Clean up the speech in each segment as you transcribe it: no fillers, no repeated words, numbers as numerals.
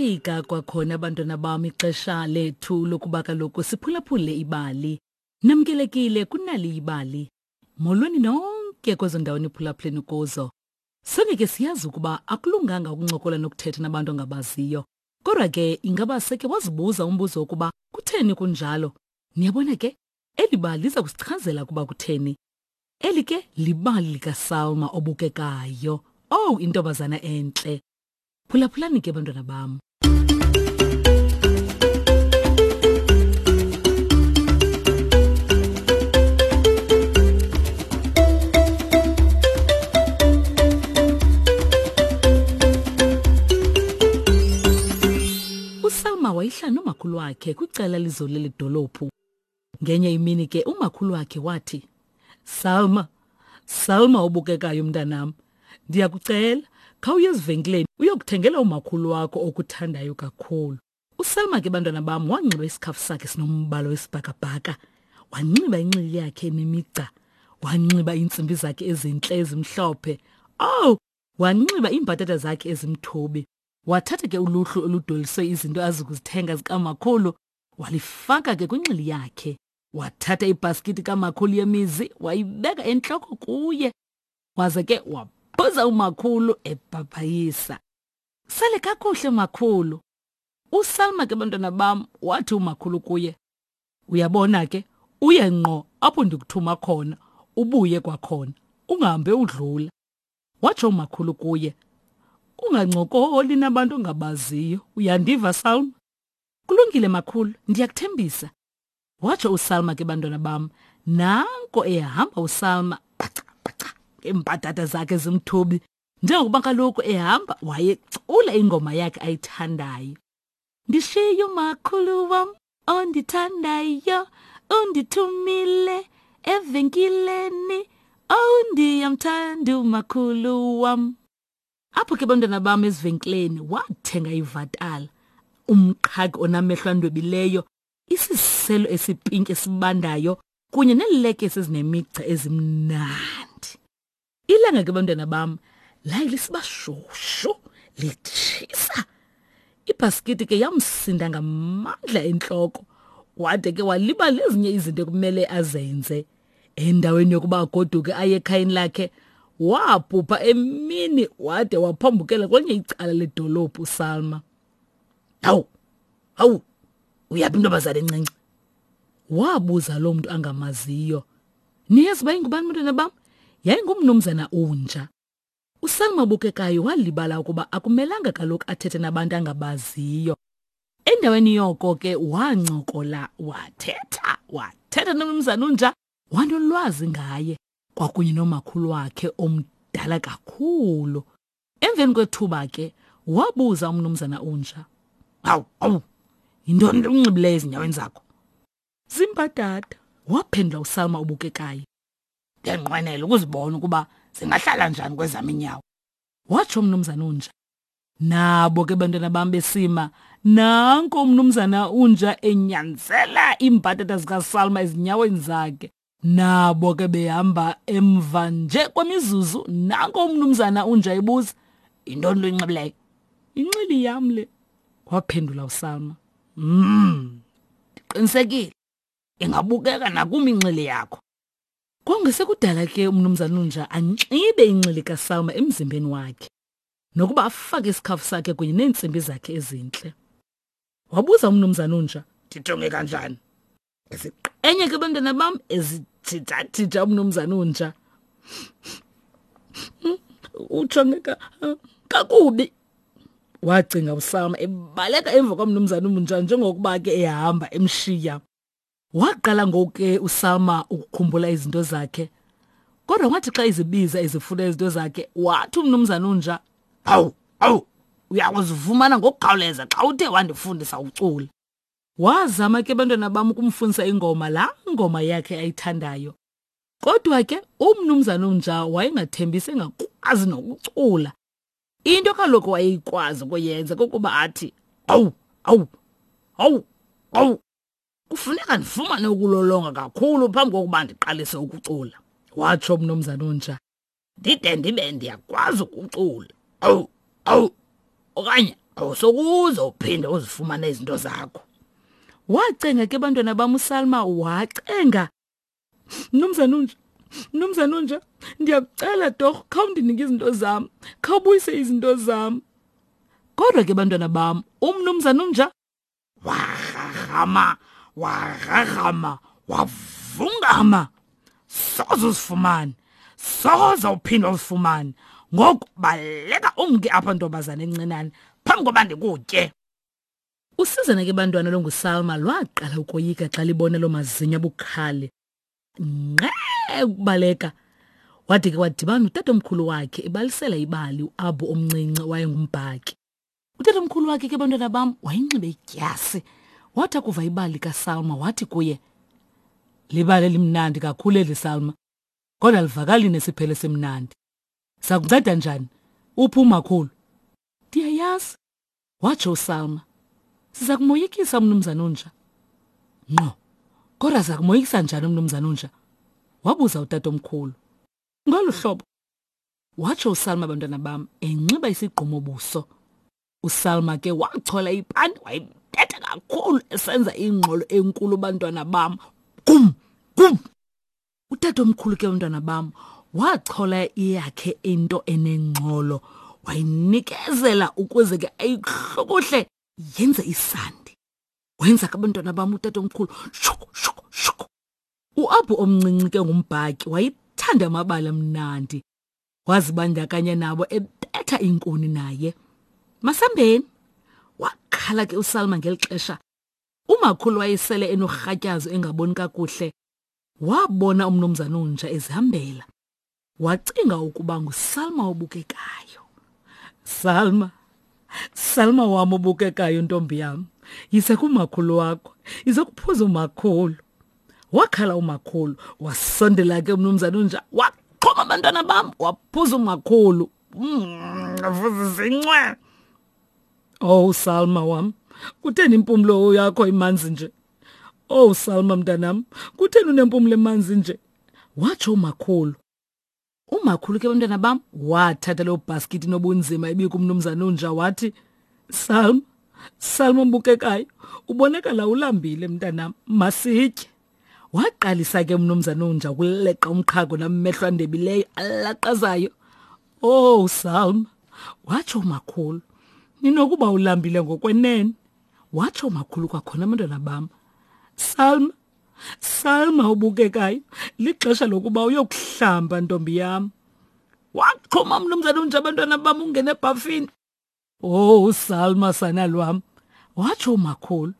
Lafika kwakhona abantwana bam ixesha lethu lokuba kaloku siphulaphule ibali. Namkelekile kunali ibali. Molweni nonke kwezo ndawo niphulaphuleni kuzo. Sonke ke siyazi ukuba akulunganga ukuncokola nokuthetha nabantu ongabaziyo. Kodwa ke ingaba seke wazibuza umbuzo wokuba kutheni kunjalo? Niyabona ke, eli bali liza kusichazela ukuba kutheni. Eli ke libali likaSalma obukekayo. Owu, intombazana entle. Phulaphulani ke bantwana bam. USalma wayehlala nomakhulu wakhe kwicala lizole ledolophu. Ngenye imini ke umakhulu wakhe wathi, Salma, Salma obukekayo mntanam, ndiyakucela khawuye ezivenkileni uyokuthengela umakhulu wakho okuthandayo kakhulu. USalma ke bantwana bam wanxiba isikhafu sakhe sinombala wesibhakabhaka, wanxiba inxili yakhe enemigca, wanxiba iintsimbi zakhe ezintle ezimhlophe. Owu, wanxiba iimbhatata zakhe ezimthubi. Wathatha ke uluhlu oludweliswe izinto azikuzithenga zikamakhulu walifaka ke kwinxili yakhe. Wathatha ibhaskiti kamakhulu yemizi wayibeka entloko kuye. Waze ke wabhuza umakhulu ebhabhayisa. Sale kakuhle makhulu. USalma ke bantwana bam wathi umakhulu kuye, Uyabona ke, uye ngqo apho ndikuthuma khona, ubuye kwakhona, ungahambe udlula. Watsho umakhulu kuye, Ungancokoli nabantu ongabaziyo, uyandiva Salma? Kulungile makhulu, ndiyakuthembisa. Watsho uSalma ke bantwana bam, nanko ehamba uSalma paca paca ngeembadada zakhe zimthubi. Njengokuba kaloku ehamba wayecula ingoma yakhe ayithandayo. Ndishiye umakhulu wam ondithandayo, undithumile evenkileni, oh ndiyamthanda umakhulu wam. Apho ke bantwana bam ezivenkileni wathenga ivatala, umqhagi onamehlo andwebileyo, isiselo esipinki esibandayo kunye neelekese ezinemigca ezimnandi. Ilanga ke bantwana bam laye lisiba shushu litshisa. Ibhaskiti ke yamsinda ngamandla entloko wade ke walibala ezinye izinto ekumele azenze. Endaweni yokuba agoduke aye ekhayeni lakhe wabhubha emini wade waphambukela kwenye icala ledolophu uSalma. Hawu, hawu, uyaphi intombazana encinci? Wabuza lo mntu angamaziyo. Niyazi uba ingubani bantwana bam? Yayingumnumzana uNja. USalma obukekayo walibala ukuba akumelanga kaloku athethe nabantu angabaziyo. Endaweni yoko ke wancokola wathetha wathetha nomnumzana uNja wanolwazi ngaye kwakunye nomakhulu wakhe omdala kakhulu. Emveni kwethuba ke wabuza umnumzana uNja, "Hawu, hawu, yintoni le unxibileyo ezinyaweni zakho?" Zimbadada, waphendula uSalma obukekayo. Ndiyanqwenela ukuzibona ukuba zingahlala njani kwezam iinyawo, watsho umnumzana uNja. Nabo ke bantwana bam besima, nanko umnumzana uNja enyanzela iimbhatata zikaSalma ezinyaweni zakhe. Nabo ke behamba emva nje kwemizuzu, nanko umnumzana uNja ebuza, yintoni lo inxibileyo? Inxili yam le, waphendula uSalma. Ndiqinisekile ingabukeka nakum inxili yakho. Kwangesekudala ke umnumzana uNja anxibe inxili kaSalma emzimbeni wakhe, nokuba afake isikhafu sakhe kunye neentsimbi zakhe ezintle. Wabuza umnumzana uNja, ndijonge kanjani? Enye ke bantwana bam ezijijajija umnumzana uNja. Ujongeka kakubi. Wacinga uSama ebaleka emva kwamnumzana uNja njengokuba ke ehamba emshiya. Waqala ngoku ke uSalma ukukhumbula izinto zakhe. Kodwa wathi xa izibiza ezifuna izinto zakhe, wathi umnumzana uNja, "Hawu, hawu, uyakuzifumana ngokukhawuleza xa uthe wandifundisa ucula." Wazama ke bantwana bam ukumfundisa ingoma, laa ngoma yakhe ayithandayo. Kodwa ke umnumzana uNja wayengathembisi engakwazi nokucula. Into kaloku wayeyikwazi ukuyenza kukuba athi, "Awu, awu, awu, awu." Kufuneka ndifumane ukulolonga kakhulu phambi kokuba ndiqalise ukucula, watsho umnumzana uNja. Ndide ndibe ndiyakwazi ukucula. Awu, awu, okanye Awusokuze uphinde uzifumane izinto zakho. Wacenga ke bantwana bam uSalma wacenga. Mnumzana unja, mnumzana unja, ndiyakucela torho khawundinike izinto zam, khawubuyise izinto zam. Kodwa ke bantwana bam, umnumzana unja warharhama, warharhama, wavungama. Soze uzifumane, soze uphinde uzifumane. Ngoku baleka umke apha ntombazana encinane phambi koba ndikutye. Usizana ke bantwana longuSalma lwaqala ukoyika xa libona loo mazinyo abukhali. Nqe ukubaleka. Wade ke wadibana notatomkhulu wakhe ebalisela ibali uAbu omncinci owayengumbhaki. Utatomkhulu wakhe ke bantwana bam wayinxibe idyasi. Wathi akuva ibali likaSalma wathi kuye, Libali elimnandi kakhulu eli Salma, kodwa livakali nesiphelo esimnandi. Sakunceda njani? Uphi umakhulu? Ndiyayazi, watsho uSalma. Siza kumoyikisa umnumzana unja. Ngqo, kodwa siza kumoyikisa njani umnumzana unja? Wabuza utatomkhulu. Ngolu hlobo, watsho uSalma bantwana bam enxiba isigqumo buso. USalma ke wachola ipani wayibetha kakhulu esenza ingxolo enkulu bantwana bam. Gum, gum. Utatomkhulu ke bantwana bam wachola iyakhe into enengxolo wayinikezela ukuze ke ayihlokohle yenze isandi. Wenza ke bantwana bam utatomkhulu shuku shuku shuku. UAbu omncinci ke ngumbhaki wayethanda amabali amnandi. Wazibandakanya nabo ebetha iinkuni naye. Masambeni! Wakhala ke uSalma ngeli xesha. Umakhulu wayesele enorhatyazo engaboni kakuhle. Wabona umnumzana unja ezihambela. Wacinga ukuba nguSalma obukekayo. Salma, Salma wam obukekayo ntombi yam, yise kumakhulu wakho, yize kuphuza umakhulu. Wakhala umakhulu, wasondela ke umnumzana unja, waqhoma abantwana bam, waphuza umakhulu. Zincwe. Oh Salma wam, kutheni impumlo yakho imanzi nje? Oh Salma mntanam, kutheni unempumlo emanzi nje? Watsho umakhulu. Umakhulu ke bantwana bam wathatha loo bhaskithi nobunzima ibikumnumzana unja wathi, Salma, Salma mbukekayo, ubonakala ulambile mntanam, masitye. Waqalisa ke umnumzana unja ukuleqa umqhago namehlo andebileyo alaqazayo. Oh Salma, watsho umakhulu, ninokuba ulambile ngokwenene. Watsho umakhulu kwakhona abantwana bam. Salma, Salma ubukekayo, lixesha lokuba uyokuhlamba ntombi yam. Waqhuma mnumzana unje abantwana bam ungene ebhafini. Oh Salma sana lwam, watsho umakhulu.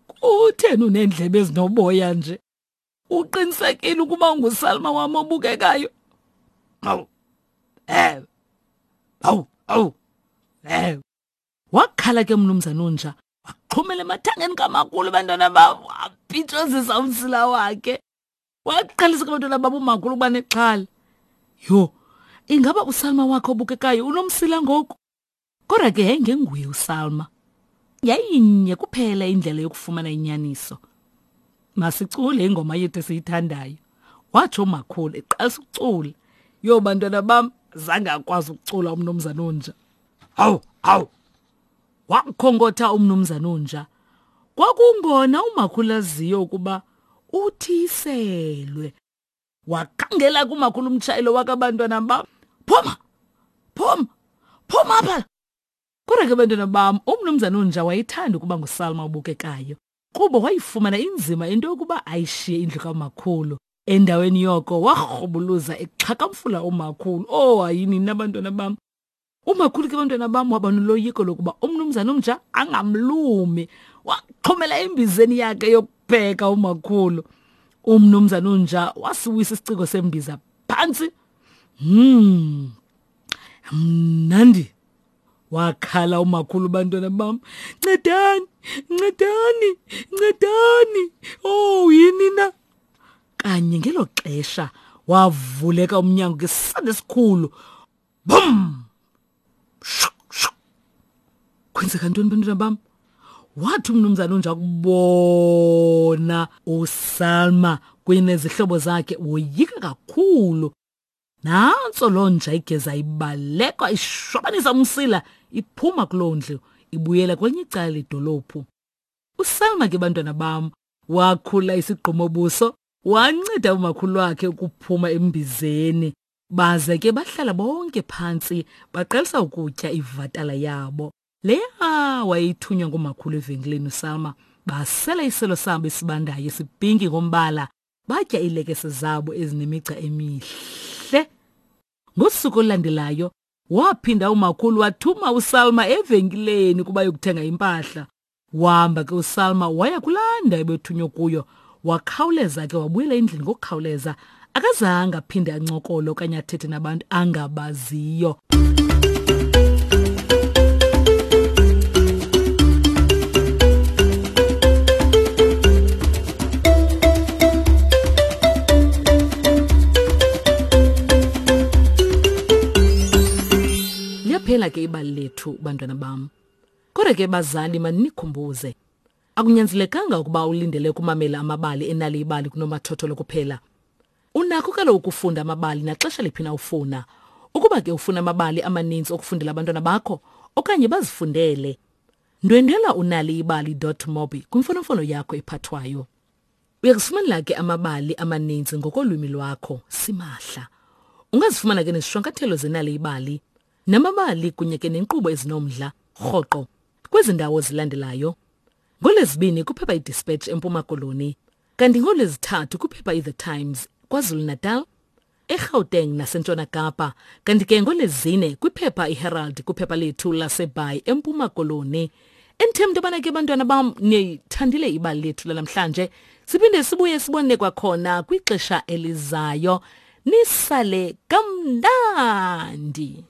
Kutheni uneendlebe ezinoboya nje? Uqinisekile ukuba unguSalma wam obukekayo? Awu. Eh. Awu, awu. Eh. Wakhala ke mnumzana unja, waxhumela emathangeni kamakhulu abantwana babo, wapitshozisa umsila wakhe. Waqalisa ke abantwana babo umakhulu ukuba nexhala. Yho, ingaba uSalma wakhe obukekayo unomsila ngoku? Kodwa ke yayingenguye uSalma. Yayinye kuphela indlela yokufumana inyaniso. Masicule ingoma yethu esiyithandayo, watsho umakhulu eqalisa ukucula. Yho bantwana bam, zange akwazi ukucula umnumzana onja. Hawu, hawu! Wakhonkotha umnumzana onja. Kwakungona umakhulu aziyo ukuba uthiselwe. Wakhangela kumakhulu umtshayelo wakabantwana bam. Phuma! Phuma! Phuma apha! Kodwa ke bantwana bam, umnumzana onja wayethanda ukuba nguSalma obukekayo. Kuba wayifumana inzima into yokuba ayishiye indlu kamakhulu. Endaweni yoko warhubuluza exhakamfula umakhulu. Oh, hayini nina bantwana bam. Umakhulu ke bantwana bam waba noloyiko lokuba umnumzana omtsha angamlumi. Waxhomela embizeni yakhe yokupheka umakhulu. Umnumzana onja wasiwisa isiciko sembiza phantsi. Mnandi. Wakhala umakhulu bantwana bam. Ncedani, ncedani, ncedani. Oh, yini na? Kanye ngelo xesha wavuleka umnyango ngesandi esikhulu. Bum! Shuk, shuk. Kwenzeka ntoni bantwana bam? Wathi umnumzana unja kubona uSalma kunye nezihlobo zakhe woyika kakhulu. Nantso loo nja igeza ibaleka ishwabanisa umsila iphuma kuloo ndlu ibuyela kwelinye icala ledolophu. USalma ke bantwana bam wakhula isigqumo buso wanceda umakhulu wakhe ukuphuma embizeni. Baze ke bahlala bonke phantsi baqalisa ukutya ivatala yabo. Leya wayithunywa ngumakhulu evenkileni uSalma. Basela iselo sabo esibandayo esipinki ngombala, batya iilekese zabo ezinemigca emihle. Ngosuku olulandelayo waphinda umakhulu wathuma uSalma evenkileni ukuba yokuthenga impahla. Wahamba ke uSalma waya kulaa ndawo ebethunywe kuyo. Wakhawuleza ke wabuyela endlini ngokukhawuleza. Akazange aphinde ancokole okanye athethe nabantu angabaziyo. Liyaphela ke ibali lethu bantwana bam. Kodwa ke bazali manikhumbuze. Akunyanzelekanga ukuba ulindele ukumamela amabali enali ibali kunomathotholo kuphela. Unakho kaloku ukufunda amabali naxesha liphi na ufuna. Ukuba ke ufuna amabali amaninzi okufundela abantwana bakho okanye bazifundele, ndwendwela unaliibali.mobi kwimfonomfono yakho ephathwayo. Uyakuzifumanela ke amabali amaninzi ngokolwimi lwakho simahla. Ungazifumana ke nezishwankathelo zenali ibali namabali kunye ke nenkqubo ezinomdla rhoqo kwezi ndawo zilandelayo. NgoLwezibini kuphepha iDispatch eMpuma Koloni, kanti ngoLwezithathu kuphepha iThe Times KwaZulu-Natal, eGauteng naseNtshona Kapa, kanti ke ngoLwezine kwiphepha iHerald kwiphepha lethu laseBhayi eMpuma Koloni. Endithemba into yobana ke bantwana bam niyithandile ibali lethu lanamhlanje. Siphinde sibuye sibone kwakhona kwixesha elizayo. Nisale kamnandi.